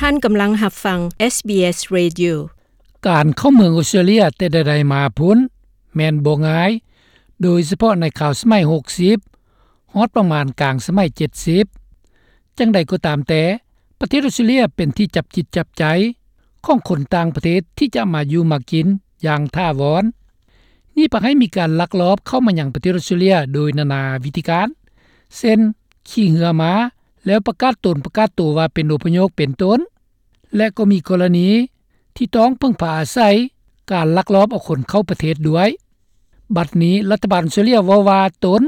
ທ່ານກຳລັງຮັບຟັງ SBS Radio. ການເຂົ້າເມືອງອົດສະຕຣາເລຍແຕ່ໃດໆມາພຸ້ນ ແມ່ນບໍ່ງ່າຍ, ໂດຍສະເພາະໃນຄາວສະໄໝຫົກສິບ ຮອດປະມານກາງສະໄໝເຈັດສິບ. ຈັ່ງໃດກໍຕາມແຕ່, ປະເທດອົດສະຕຣາເລຍເປັນທີ່ຈັບຈິດຈັບໃຈຂອງຄົນຕ່າງປະເທດທີ່ຈະມາຢູ່ມາກິນຢ່າງຖາວອນ. ນີ້ພາໃຫ້ມີການລັກລອບເຂົ້າມາຍັງປະເທດອົດສະຕຣາເລຍໂດຍນານາວິທີການ, ເຊັ່ນ ຂີ່ເຮືອມາ ແລ້ວປະກາດຕົນປະກາດໂຕວ່າເປັນອົບພະຍົບເປັນຕົ້ນ, ແລະ ກໍມີກໍລະນີທີ່ຕ້ອງເພິ່ງພາອາໄສການລັກລອບເອົາຄົນເຂົ້າປະເທດດ້ວຍ. ບັດນີ້ລັດຖະບານອົດສະຕຣາເລຍເວົ້າວ່າຕົນ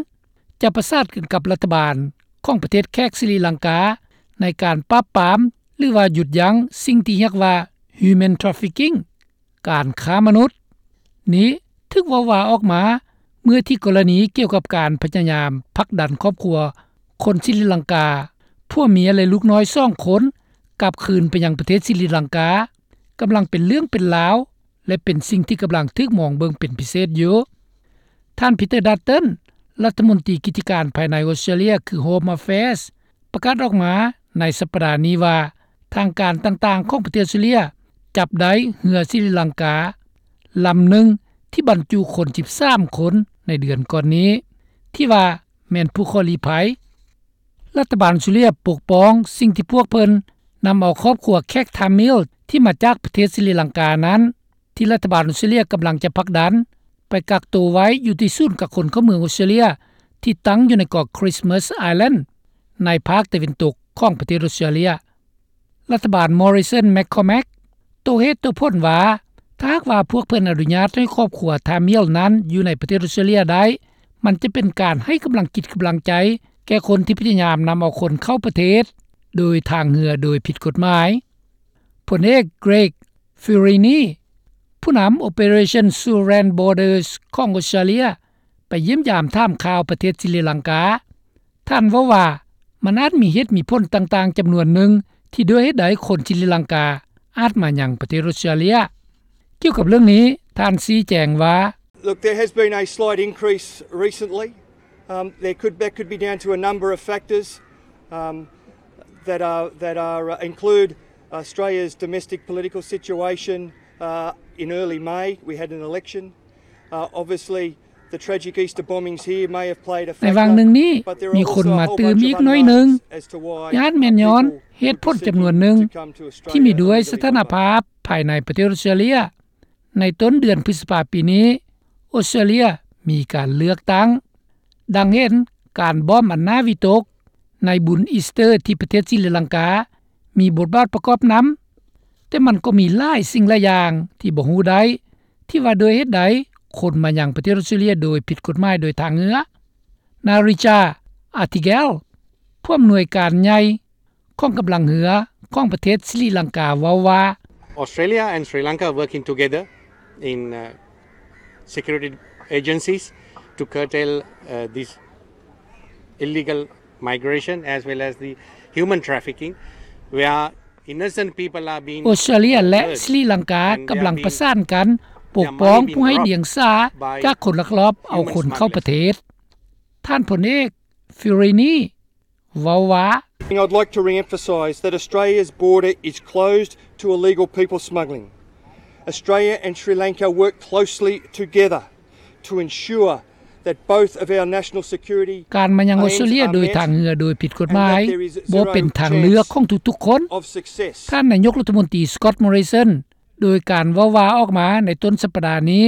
ຈະປະສານກັນກັບລັດຖະບານຂອງປະເທດແຂກສະລິລັງກາ ໃນການປາບປາມ ຫຼືວ່າຢຸດຢັ້ງສິ່ງທີ່ຮຽກວ່າ human trafficking ການຄ້າມະນຸດ. ນີ້ຖືກເວົ້າວ່າອອກມາເມື່ອທີ່ກໍລະນີກ່ຽວກັບການພະຍາຍາມຜັກດັນຄອບຄົວຄົນສະລິລັງກາ ຜົວເມຍ ແລະ ລູກນ້ອຍສອງຄົນ ກັບຄືນໄປຍັງປະເທດສະລິລັງກາ ກຳລັງເປັນເລື່ອງເປັນລາວ ແລະ ເປັນສິ່ງທີ່ກຳລັງຖືກມອງເບິ່ງເປັນພິເສດຢູ່. ທ່ານ Peter Dutton ລັດຖະມົນຕີກິດຈະການພາຍໃນອົດສະຕຣາເລຍ ຄື Home Affairs ປະກາດອອກມາໃນສັບປະດານີ້ວ່າ ທາງການຕ່າງໆຂອງປະເທດອົດສະຕຣາເລຍຈັບໄດ້ເຮືອສະລິລັງກາລຳໜຶ່ງທີ່ບັນຈຸຄົນສິບສາມຄົນໃນເດືອນກ່ອນນີ້ ທີ່ວ່າແມ່ນຜູ້ຂໍລີ້ໄພ. ລັດຖະບານອົດສະຕຣາເລຍປົກປ້ອງສິ່ງທີ່ພວກເພິ່ນນຳເອົາຄອບຄົວແຂກທາມິລທີ່ມາຈາກປະເທດສະລິລັງການັ້ນ ທີ່ລັດຖະບານອົດສະຕຣາເລຍກຳລັງຈະຜັກດັນໄປກັກໂຕໄວ້ຢູ່ທີ່ສູນກັກຄົນເຂົ້າເມືອງອົດສະຕຣາເລຍ ທີ່ຕັ້ງຢູ່ໃນເກາະ Christmas Island ໃນພາກຕາເວັນຕົກຂອງປະເທດອົດສະຕຣາເລຍ. ລັດຖະບານ Morrison McCormack ໂຕ້ເຫດໂຕ້ຜົນວ່າ ຖ້າຫາກວ່າພວກເພິ່ນອະນຸຍາດໃຫ້ຄອບຄົວທາມິລນັ້ນຢູ່ໃນປະເທດອົດສະຕຣາເລຍໄດ້, ມັນຈະເປັນການໃຫ້ກຳລັງຈິດກຳລັງໃຈແກ່ຄົນທີ່ພະຍາຍາມນຳເອົາຄົນເຂົ້າປະເທດໂດຍທາງເຮືອໂດຍຜິດກົດໝາຍ. ພົນເອກ Greg Fiorini ຜູ້ນຳ Operation Sealand Borders ຂອງອົດສະຕຣາເລຍ ໄປຢ້ຽມຢາມຖາມຂ່າວປະເທດສະລິລັງກາ. ທ່ານເວົ້າວ່າ ມັນອາດມີເຫດມີຜົນຕ່າງໆຈຳນວນໜຶ່ງ ທີ່ດ້ວຍເຫດໃດຄົນສະລິລັງກາອາດມາຍັງປະເທດອົດສະຕຣາເລຍ. ກ່ຽວກັບເລື່ອງນີ້ ທ່ານຊີ້ແຈງວ່າ Look, there has been a slight increase recently. Um, there could, that could be down to a number of factors, um, that are, that are, uh, include Australia's domestic political situation. Uh, in early May, we had an election. Uh, obviously, the tragic Easter bombings here may have played a factor, ໃນຫວ່າງໜຶ່ງນີ້ ມີຄົນມາຕື່ມອີກໜ້ອຍໜຶ່ງ ອາດແມ່ນຍ້ອນເຫດຜົນຈຳນວນໜຶ່ງ ທີ່ມີດ້ວຍສະຖານະພາບພາຍໃນປະເທດອົດສະຕຣາເລຍ. ໃນຕົ້ນເດືອນພຶດສະພາປີນີ້ ອົດສະຕຣາເລຍມີການເລືອກຕັ້ງ. ດັ່ງເຫັນການບອມອັນໜ້າວິຕົກໃນບຸນອີສເຕີທີ່ປະເທດສະລິລັງກາ ມີບົດບາດປະກອບນຳ, ແຕ່ມັນກໍມີຫຼາຍສິ່ງຫຼາຍຢ່າງທີ່ບໍ່ຮູ້ໄດ້ ທີ່ວ່າດ້ວຍເຫດໃດຄົນມາຍັງປະເທດອົດສະຕຣາເລຍໂດຍຜິດກົດໝາຍໂດຍທາງເຮືອ. ນາຣິຈາ ອາທິແກລ ຜູ້ອຳນວຍການໃຫຍ່ ຂອງກຳລັງເຮືອຂອງປະເທດສະລິລັງກາເວົ້າວ່າ Australia and Sri Lanka are working together in, uh, security agencies to curtail, uh, this illegal migration as well as the human trafficking, where innocent people are being ອົດສະຕຣາເລຍ ແລະ ສະລິລັງກາ ກຳລັງປະສານກັນປົກປ້ອງຜູ້ໄຮ້ດຽງສາຈາກຄົນລັກລອບເອົາຄົນເຂົ້າປະເທດ. ທ່ານພົນເອກ ຟິວຣີນີ ເວົ້າວ່າ I'd like to re-emphasise that Australia's border is closed to illegal people smuggling. Australia and Sri Lanka work closely together to ensure that both of our national security ການມາຍັງອົດສະຕຣາເລຍໂດຍທາງເຮືອໂດຍຜິດກົດໝາຍ ບໍ່ເປັນທາງເລືອກຂອງທຸກໆຄົນ. ທ່ານນາຍົກລັດຖະມົນຕີ Scott Morrison ໂດຍການເວົ້າວ່າອອກມາໃນຕົ້ນສັບປະດານີ້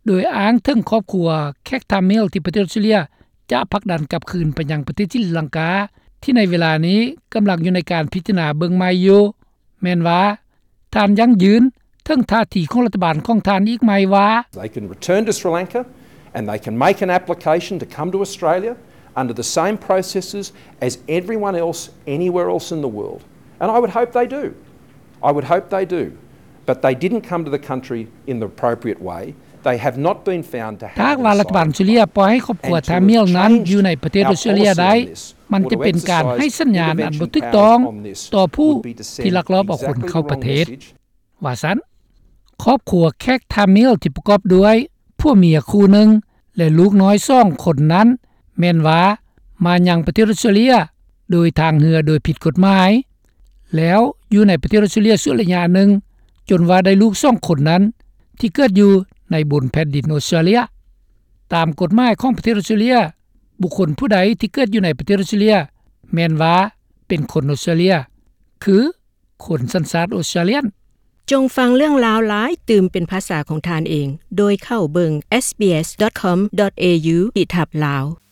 ໂດຍອ້າງເຖິງຄອບຄົວແຂກທາມິລທີ່ປະເທດອົດສະຕຣາເລຍຈະຜັກດັນກັບຄືນໄປຍັງປະເທດສະລິລັງກາ ທີ່ໃນເວລານີ້ກຳລັງຢູ່ໃນການພິຈາລະນາເບິ່ງໃໝ່ຢູ່ ແມ່ນວ່າທ່ານຢັ້ງຢືນເຖິງທ່າທີຂອງລັດຖະບານຂອງທ່ານອີກໃໝ່ວ່າ They can return to Sri Lanka and they can make an application to come to Australia under the same processes as everyone else anywhere else in the world. And I would hope they do. I would hope they do. But they didn't come to the country in the appropriate way. They have not been found to have ຖ້າຫາກວ່າລັດຖະບານອົດສະຕຣາເລຍປ່ອຍໃຫ້ຄອບຄົວທາມິລນັ້ນຢູ່ໃນປະເທດອົດສະຕຣາເລຍໄດ້ ມັນຈະເປັນການໃຫ້ສັນຍານອັນບໍ່ຖືກຕ້ອງຕໍ່ຜູ້ທີ່ລັກລອບເອົາຄົນເຂົ້າປະເທດ ວ່າຊັ້ນ. ຄອບຄົວແຂກທາມິລທີ່ປະກອບດ້ວຍຜົວເມຍຄູ່ໜຶ່ງ ແລະ ລູກນ້ອຍສອງຄົນນັ້ນ ແມ່ນວ່າມາຍັງປະເທດອົດສະຕຣາເລຍໂດຍທາງເຮືອໂດຍຜິດກົດໝາຍ ແລ້ວ ຢູ່ໃນປະເທດອອສເຕຣເລັຽຊົ່ວໄລຍະໜຶ່ງ ຈົນວ່າໄດ້ລູກສອງຄົນນັ້ນ ທີ່ເກີດຢູ່ໃນບົນແຜ່ນດິນອອສເຕຣເລັຽ. ຕາມກົດໝາຍຂອງປະເທດອອສເຕຣເລັຽ, ບຸກຄົນຜູ້ໃດທີ່ເກີດຢູ່ໃນປະເທດອອສເຕຣເລັຽ ແມ່ນວ່າເປັນຄົນອອສເຕຣເລັຽ ຄືຄົນສັນຊາດອອສເຕຣເລັຽນ. ຈົ່ງຟັງເລື່ອງລາວຫຼາຍຕື່ມເປັນພາສາຂອງທ່ານເອງ ໂດຍເຂົ້າເບິ່ງ SBS.com.au/lao